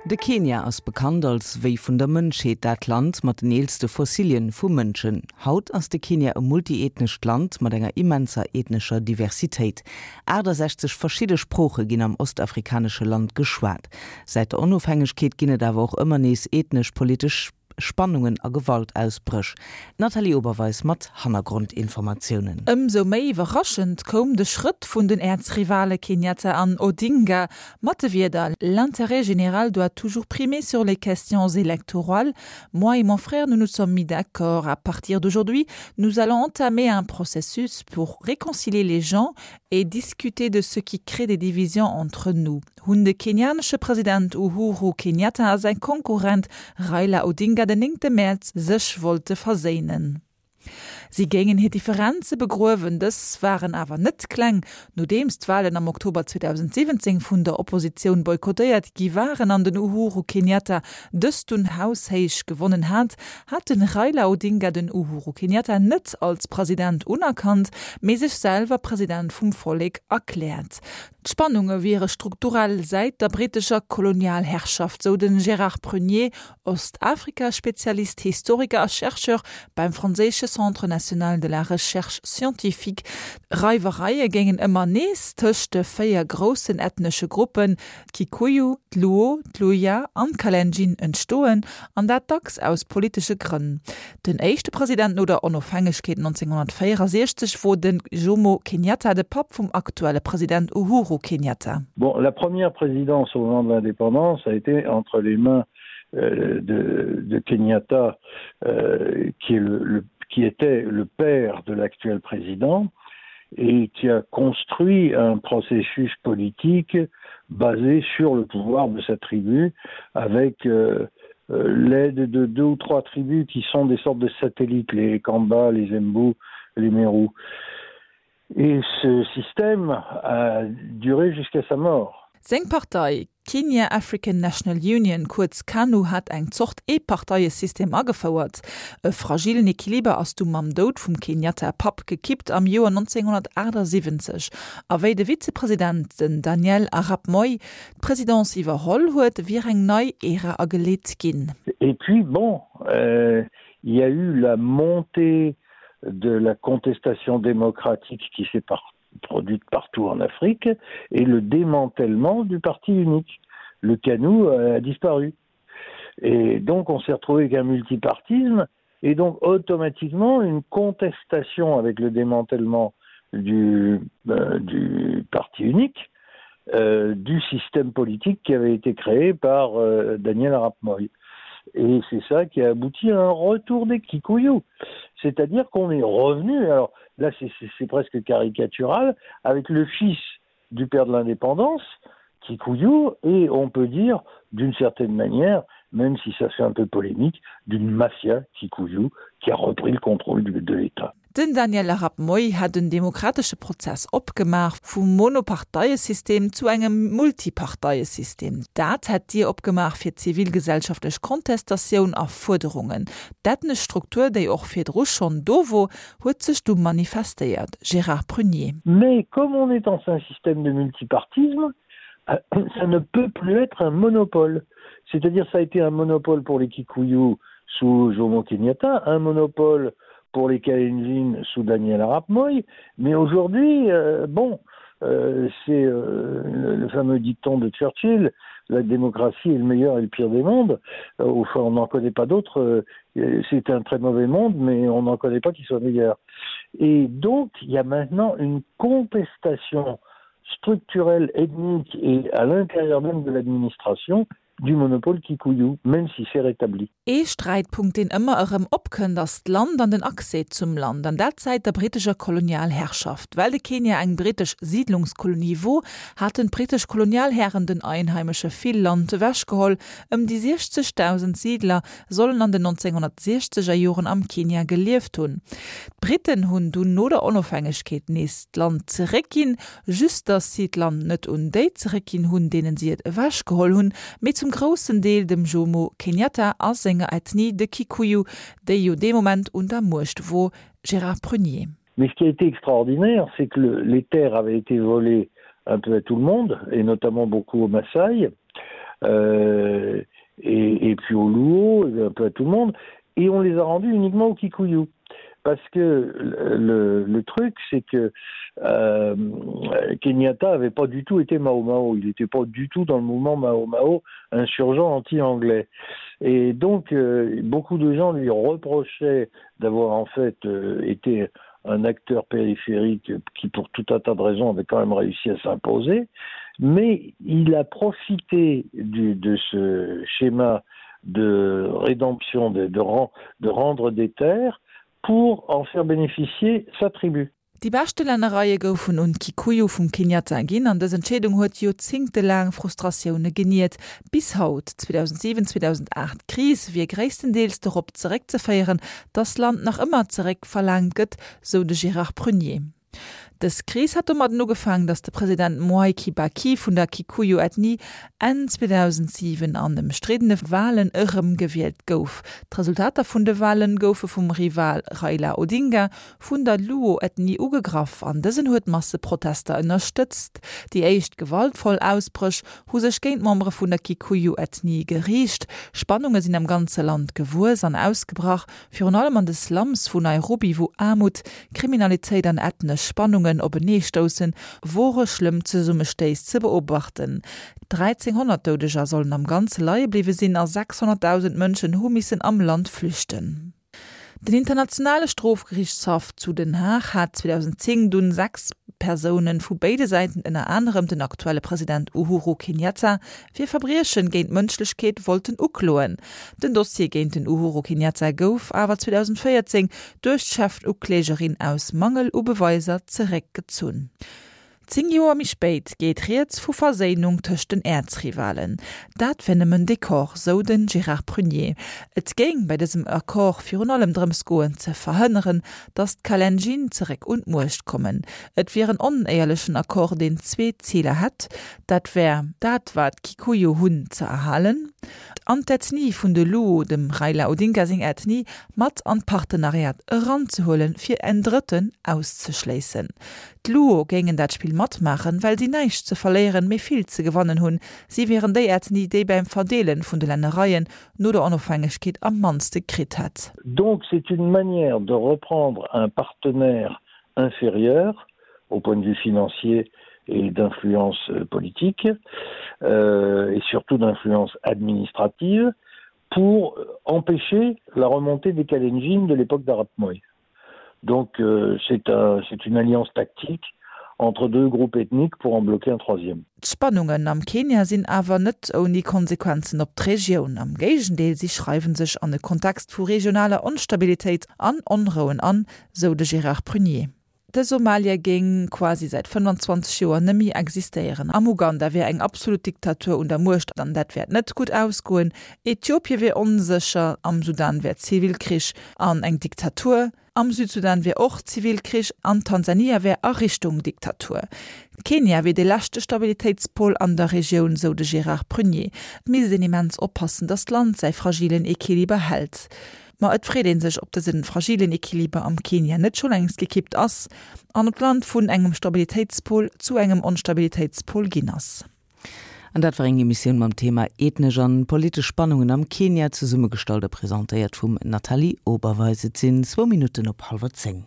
De Kenia ass bekannt als Wéi vun der Mënschheet, dat Land mat den eelste Fossilien vu Mënschen. Haut ass de Kenia e multiethnescht Land mat enger immenser ethnescher Diversitéit. 68 verschidde Sprooche ginn am ostafrikanesche Land geschwat. Säit der Onofhängegkeet ginn et awer och ëmmer nees ethnesch-politesch Spannungen a Gewaltausbréch. D'Nathalie Oberweis mat Hannergrondinformatiounen. Ëmsou méi iwwerraschend koum de Schrëtt vun den Äerzrivale Kenyatta an Odinga mat de Wierder, L'intérêt général doit toujours primer sur les questions électorales. Moi et mon frère, nous nous sommes mis d'accord. À partir d'aujourd'hui, nous allons entamer un processus pour réconcilier les gens et discuter de ce qui crée des divisions entre nous. Hunn de kenianesche President Uhuru Kenyatta a säi Konkurrent Raila Odinga den néngte Mäerz sech wollte verséinen. Si géingen hir Differenze begruewen. Dës waren awer net kleng. Nodeems d'Walen am Oktober 2017 vun der Oppositioun boykottéiert gi waren an den Uhuru Kenyatta dës dunn haushéich gewonnen hat, hat de Raila Odinga den Uhuru Kenyatta net als President unerkannt, mee sech selwer President vum Vollek erkläert. D'Spannunge wiere strukturell säit der brittescher Kolonialherrschaft, sou de Gérard Prunier, Ostafrika-Spezialist, Historiker a Chercheur beim franséische Centre national de la recherche scientifique. Reiwereie géingen ëmmer nees tëscht de 4 groussen ethnesche Gruppen, d'Kikuyu, d'Luo, d'Luhya an d'Kalenjin, entstoen, an dat dacks aus politesche Grënn. Den éischte President no der Onofhängegkeet 1964 wor de Jomo Kenyatta, de Papp vum aktuelle President Uhuru Kenyatta. Bon, la première présidence au moment de l'indépendance a été entre les mains euh, de, de Kenyatta euh, qui, est le, le, qui était le père de l'actuel président et qui a construit un processus politique basé sur le pouvoir de sa tribu avec euh, euh, l'aide de deux ou trois tribus qui sont des sortes de satellites, les Kamba, les Mbu, les Mérous. Et ce système a duré jusqu'à sa mort. Seng Partei, Kenya African National Union, kuerz KANU, hat eng Zort Eeparteiesystem agefouert. E fragillen Equiliber ass du mam Doud vum Kenyatta Papp gekippt am Joer 1978. A wéi de Vizepresident, den Daniel Arap Moi, d'Presidence iwwerholl huet, wier eng nei Ära ageleet ginn. Et puis bon, euh, il y a eu la montée de la contestation démocratique qui s'est produite partout en Afrique et le démantèlement du parti unique. Le canou a disparu. Et donc on s'est retrouvé avec un multipartisme et donc automatiquement une contestation avec le démantèlement du, euh, du parti unique euh, du système politique qui avait été créé par euh, Daniel Arap Moy. Et c'est ça qui a abouti à un retour des Kikuyu. C'est-à-dire qu'on est revenu, alors là c'est presque caricatural, avec le fils du père de l'indépendance, Kikuyu, et on peut dire d'une certaine manière, même si ça fait un peu polémique, d'une mafia Kikuyu qui a repris le contrôle du, de l'État. Den Daniel Arap Moi hätt en demokratesche Prozess opgemaach, vum Monoparteiesystem zu engem Multiparteiesystem. Dat hätt d'Dier opgemaach fir zivilgesellschaftlech Kontestatioun a Fuerderungen. D'ethnesch Struktur, déi och virdru schonn do wor, huet sech du manifestéiert. Gérard Prunier. Mais comme on est dans un système de multipartisme, ça ne peut plus être un monopole. C'est-à-dire ça a été un monopole pour les Kikuyu sous Jomo Kenyatta, un monopole pour les Kalenjin sous Daniel Arap Moi, mais aujourd'hui euh, bon euh, c'est euh, le, le fameux dicton de Churchill la démocratie est le meilleur et le pire des mondes euh, enfin on n'en connaît pas d'autres euh, c'est un très mauvais monde mais on n'en connaît pas qui soit meilleur et donc il y a maintenant une contestation structurelle ethnique et à l'intérieur même de l'administration du monopole Kikuyu, même si c'est rétabli. Ee Sträitpunkt, deen ëmmer erëm opkënnt, ass d'Land an den Accès zum Land, an dat säit der brittescher Kolonialherrschaft. Well de Kenia eng brittesch Siidlungskolonie wor, haten d'brittesch Kolonialhären den Einheimesche vill Land ewechgeholl. Ëm déi 60.000 Siidler sollen an den 1960 er Joren am Kenia gelieft hunn. D'Britten hunn dunn no der Onofhängegkeet nees d'Land zeréckginn, Just datt si d'Land net un déi zeréckginn hunn, deenen si et ewechgeholl hunn, mee zum groussen Deel dem Jomo Kenyatta a senger Ethnie, de Kikuyu, déi jo dee Moment un der Muecht wor. Gérard Prunier. Mais ce qui a été extraordinaire, c'est que le, les terres avaient été volées un peu à tout le monde, et notamment beaucoup aux Maasai. euh, et, et puis au Luo, et un peu à tout le monde, et on les a rendus uniquement au Kikuyu. Parce que le, le, le truc, c'est que euh, Kenyatta avait pas du tout été Mao Mao, il n'était pas du tout dans le mouvement Mao Mao insurgent anti-anglais. Et donc euh, beaucoup de gens lui reprochaient d'avoir en fait euh, été un acteur périphérique qui pour tout un tas de raisons avait quand même réussi à s'imposer, mais il a profité du, de ce schéma de rédemption de, de, rend, de rendre des terres pour en faire bénéficier sa tribu. Déi beschte Lännereie goufen un d'Kikuyu vum Kenyatta ginn an dës Entscheedung huet joerzéngtelaang Frustratioune geniert. Bis haut, 2007, 2008. D'Kris wier gréisstendeels dorop zeréckzeféieren, datt Land nach ëmmer zeréckverlaangt gëtt, sou de Gérard Prunier. Dës Kris hat domadden ugefaangen, datt de President Mwai Kibaki vun der Kikuyu-Ethnie Enn 2007 an ëmstriddene Walen erëmgewielt gouf. D'Resultater vun de Wale goufe vum Rival Raila Odinga vun der Luo-Ethnie ugegraff an dësen huet Masseprotester ënnerstëtzt. Déi éischt gewaltvoll Ausbréch hu sech géint Membere vun der Kikuyu-Ethnie geriicht. Spannunge sinn am ganze Land gewuess an ausgebrach, Virun allem an de Slums vu Nairobi, wou Aarmut, Kriminalitéit an ethnesch Spannungen openeestoussen, wore schlëmm Zesummestéiss ze beobachten. 1.300 Doudeger sollen am Ganze leie bliwwe sinn a 600.000 Mënschen hu missen am Land flüchten. Den Internationale Strofgeriichtshaff zu Den Haag hat 2010 dunn 6 Persoune vu béide Säiten, ënner anerem den aktuelle President Uhuru Kenyatta, fir Verbriechen géint d'Mënschlechkeet wollten ukloen. Den Dossier géint den Uhuru Kenyatta gouf awer 2014 duerch d'Chefuklägerin aus Mangel u Beweiser zeréckgezunn. 10 Joer méi spéit geet rieds vu Verséinung tëscht den Äerzrivalen. Dat wär nëmmen Dekor, sou de Gérard Prunier. Et géing bei dësem Accord virun allem drëms goen, ze verhënneren, datt d'Kalenjin zeréck un d'Muecht kommen. Et wier en onéierlechen Accord, deen zwee Ziler hätt, Dat wär dat, wat d'Kikuyu hunn, ze erhalen an d'Ethnie vun de Luo, dem Raila Odinga seng Ethnie, mat an d'Partenariat eranzehuelen, fir en Drëtten auszeschléissen. D'Luo géingen dat Spill matmaachen, well si näischt ze verléieren, mee vill ze gewannen hunn. Si wieren déi Ethnie, déi beim Verdeelen vun de Lännereien no der Onofhängegkeet am mannste kritt hätt. Donc c'est une manière de reprendre un partenaire inférieur au point de vue financier et d'influence euh, politique euh, et surtout d'influence administrative pour empêcher la remontée des Kalenjin de l'époque d'Arap Moi. Donc euh, c'est un, une alliance tactique entre deux groupes ethniques pour en bloquer un troisième. D'Spannungen am Kenia sinn awer net ouni Konsequenzen op d'Regioun. Am Géigendeel, si schreiwe sech an e Kontext vu regionaler Onstabilitéit an Onrouen an, sou de Gérard Prunier. De Somalia géing quasi säit 25 Joer nëmmi existéieren. Am Uganda wier eng absolut Diktatur un der Muecht an dat wäert net gutt ausgoen. Ethiopie wier onsécher, am Sudan wär Zivilkrich an eng Diktatur, am Südsudan wier och Zivilkrich an Tansania wär a Richtung Diktatur. Kenia wier dee leschte Stabilitéitspol an der Regioun, sou de Gérard Prunier. Et misst een immens oppassen, datt d'Land säi fragilen Equiliber hält. Ma et freet ee sech, ob dëse fragilen Equiliber am Kenia net scho längst gekippt ass an ob d'Land vun engem Stabilitéitspol zu engem Onstabilitéitspol ginn ass. An dat war eng Emissioun mam Thema Ethnesch an politesch Spannungen am Kenia, zesummegestallt a presentéiert vum Nathalie Oberweis. Et sinn zwou Minutten op hallwer 10.